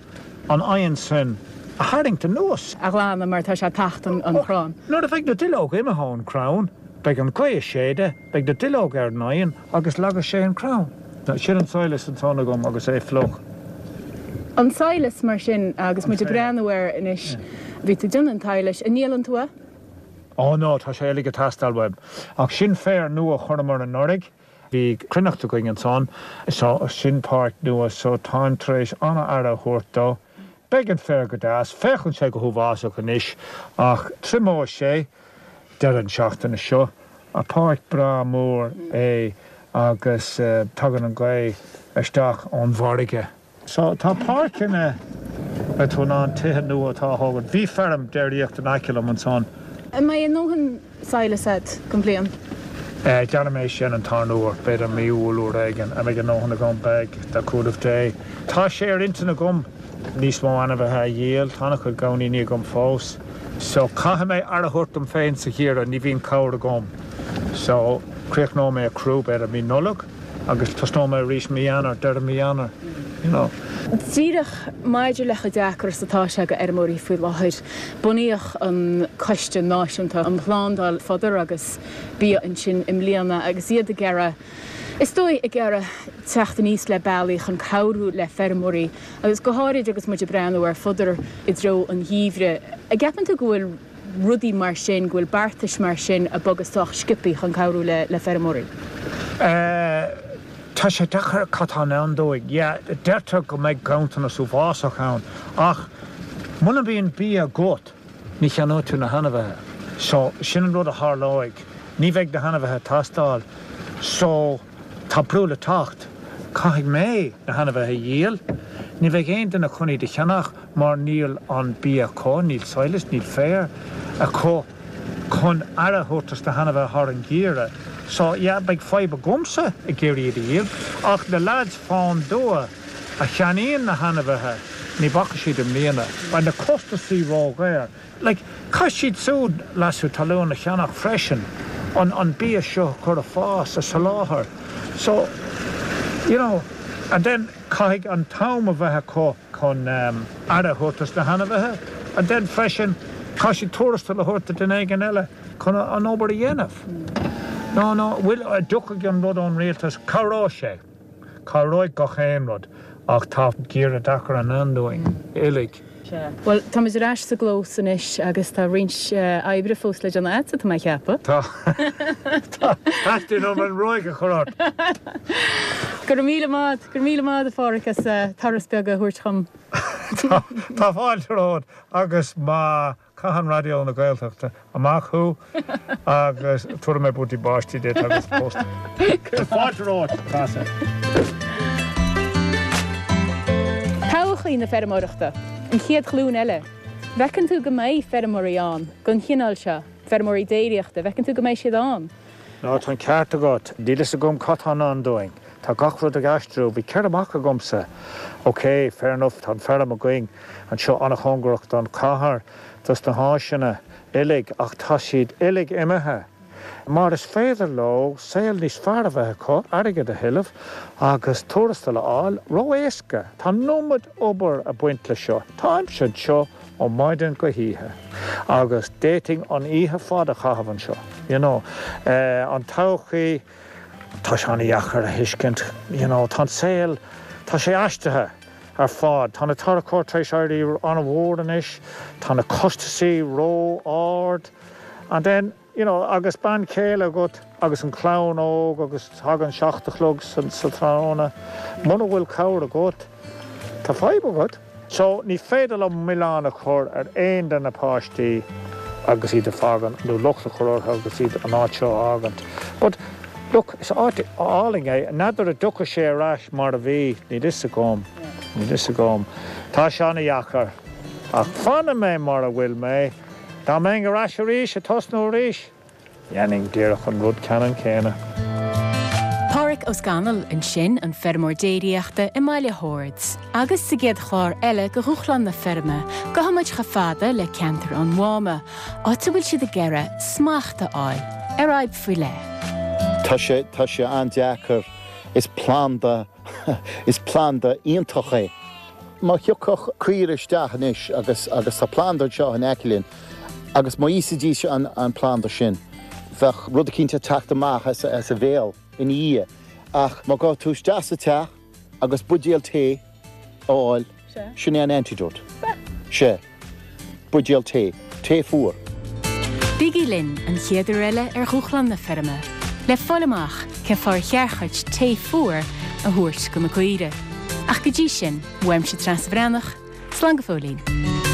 an oigheann sin a tharraingt anuas. a ghlanadh mar tá sé ag tachtadh an chrann. Nuair a bheidh na duilleoga imithe ón chrann, beidh an ghaoth ag séideadh, beidh na duilleoga ar an oigheann agus leagfaidh sé an crann. Sin an sadhlas ansan agam agus é fliuch. An sadhlas mar sin agus muid ag breathnú air anois, bhí tú ag déanamh an tsadhlais, an ndíolann tú é? Ó no, tá sé uilig ag teastáil uaim. Ach sin féar nua a chuireamar anuraidh. Bhí cruithneacht againn ansan, so sin páirc nua, so táim tar éis an-aire a thabhairt dó. Beidh an féar go deas, féachann sé go huafásach anois ach triomóidh sé deireadh an seachtaine seo. Páirc breá mór é agus tagann an ghaoth isteach ón bhfarraige. So, tá páirceanna, beidh tú in ann tithe nua atá á thógaint. Bhí feirm déiríochta in aice liom ansan. An mbeidh a ndóthain sadhlais agat don bhliain? Déanfaidh mé sin an tarna huair, b'fhéidir mí Iúil uair éigin. An mbeidh a ndóthain agam? Beidh, le cúnamh Dé. Tá sé ar intinn agam níos mó ainmhithe a dhíol. Tá an-chuid gamhainíní agam fós. So, caithfidh mé aire a thabhairt dom féin sa gheimhreadh, ní bhíonn cabhair agam. So, críochnóidh mé ag crú b'fhéidir mí Nollag. Agus tosnóidh mé arís mí Eanáir, deireadh mí Eanáir, you know. Díreach maidir le chomh deacair is atá sé go fheirmeoirí faoi láthair, bunaíodh an Coiste Náisiúnta um Shlándáil Fodar agus Bia ansin i mbliana agus iad ag iarraidh, is dóigh, ag iarraidh teacht aníos le bealaí chun cabhrú le feirmeoirí agus go háirid agus muid ag breathnú ar fodar i dtreo an gheimhridh. An gceapann tú go bhfuil. rudaí mar sin, go bhfuil beartais mar sin ag bogadh sách sciobthaí chun cabhrú le feirmeoirí? Tá sé deacair cad tá i ndán dúinn. Yeah, deirtear go mbeidh ganntanas uafásach ann ach muna mbíonn bia agat ní cheannóidh tú na hainmhithe. So, sin an rud a tharlóidh. Ní bheidh na hainmhithe ag teastáil. So, tá brú le teacht. Caithfidh mé na hainmhithe a dhíol. Ní bheidh aon duine chun iad a cheannach. mar níl an bia acu, níl sadhlas, níl féar acu chun aire a thabhairt dos na hainmhithe thar an gheimhreadh. So, yeah, beidh fadhb agamsa ag iarraidh iad a dhíol, ach na lads fán dtuath a cheannaíonn na hainmhithe, ní bhacfaidh siad i mbliana. Beidh na costasaí ródhaor. Like, caithfidh siad siúd leasú talún a cheannach freisin, an an bia seo a chur ag fás, a soláthar. So, you know, and then caithfidh an t-am a bheith acu chun aire a thabhairt dos na hainmhithe and then freisin caithfidh siad tuarastal a thabhairt do duine éigin eile chun an obair a dhéanamh. No, no, bhuel, an dtiocfaidh an rud ón rialtas, cabhróidh sé, cabhróidh gach aon rud ach tá geimhreadh deacair i ndán dúinn uilig. Sea. Bhuel, táimid ar ais sa gclós anois agus tá roinnt oibre fós le déanamh agatsa, tá mé a cheapadh. Tá. Tá. Teastaíonn uaim an ruaig a chur ort. Go raibh míle maith. Go raibh míle maith agat, a Pháraic, as turas beag a thabhairt chugam. Tá fáilte romhat agus má chaitheann Raidió na Gaeltachta amach thú agus tabharfaidh mé buataí báistí duit agus post. Tá fáilte romhat, Treasa. Todhchaí na feirmeoireachta, an chéad ghlúin eile. Bhfeiceann tú go mbeidh feirmeoirí ann den chineál seo, feirmeoirí déiríochta, bhfeiceann tú go mbeidh siad ann? Nó tá an ceart agat. Níl fhios agam cad tá i ndán dúinn. Tá gach rud ag aistriú. Bhí 4 mac agamsa. Ok, fair enough, tá an feirm againn anseo an-chóngarach don chathair, dos na háiseanna uilig, ach tá siad uilig imithe. Mar is féidir leo saol níos fearr a bheith acu, airgead a thuilleamh agus tuarastal a fháil ró-éasca. Tá an iomad obair ag baint le seo. Táimse anseo ó maidin go hoíche agus d'fhéadfainn an oíche fada a chaitheamh anseo, you know. An todhchaí, tá sé an-dheacair a thuiscint, you know, tá an saol, tá sé aistrithe ar fad. Tá na tarracóir tar éis éirí an-mhór anois, tá na costasaí ró-ard. And then, you know, agus bean chéile agat agus an chlann óg agus tagann 7 a chlog sa tráthnóna, muna bhfuil cabhair agat, tá fadhb agat. So, ní féidir liom milleán a chur ar aon de na páistí agus iad a fhágaint, nó locht a chur orthu agus iad an áit seo a fhágaint. But, look, is áit álainn é. N'fheadar an dtiocfaidh sé ar ais mar a bhí, níl fhios agam, níl fhios agam. Tá sé ana-dheacair. Ach fanfaidh mé mar a bhfuil mé. Dá mbeinn ar ais arís, ag tosnú arís, Dhéanfainn díreach an rud ceannann céanna. Pádhraic Ó Scanaill ansin, an feirmeoir déiríochta i mBaile Shoird. Agus sa gcéad chlár eile de Dhúshlán na Feirme, gabhfaidh muid chomh fada le ceantar an Mháma, áit a bhfuil siad ag iarraidh smacht a fháil ar fhadhb faoi leith. Tá sé, tá sé an-deacair. Is planda, is planda iontach é. Má thiocfadh caoire isteach anois agus, agus tá planda anseo in aice linn, Agus má íosfaidís an planda sin, bheadh rud eicínt ag teacht amach as a bhéal ina dhiaidh. Ach má ghabh tú isteach sa teach agus buidéal tae a fháil, sin é an antidote. Sea. Buidéal tae. Tae fuar. Bígí linn an chéad uair eile ar Dhúshlán na Feirme le fáil amach cén fáth ar cheart dhuit tae fuar a thabhairt do na caoirigh. Ach go dtí sin, uaimse Treasa Bhreathnach, Slán go fóillín.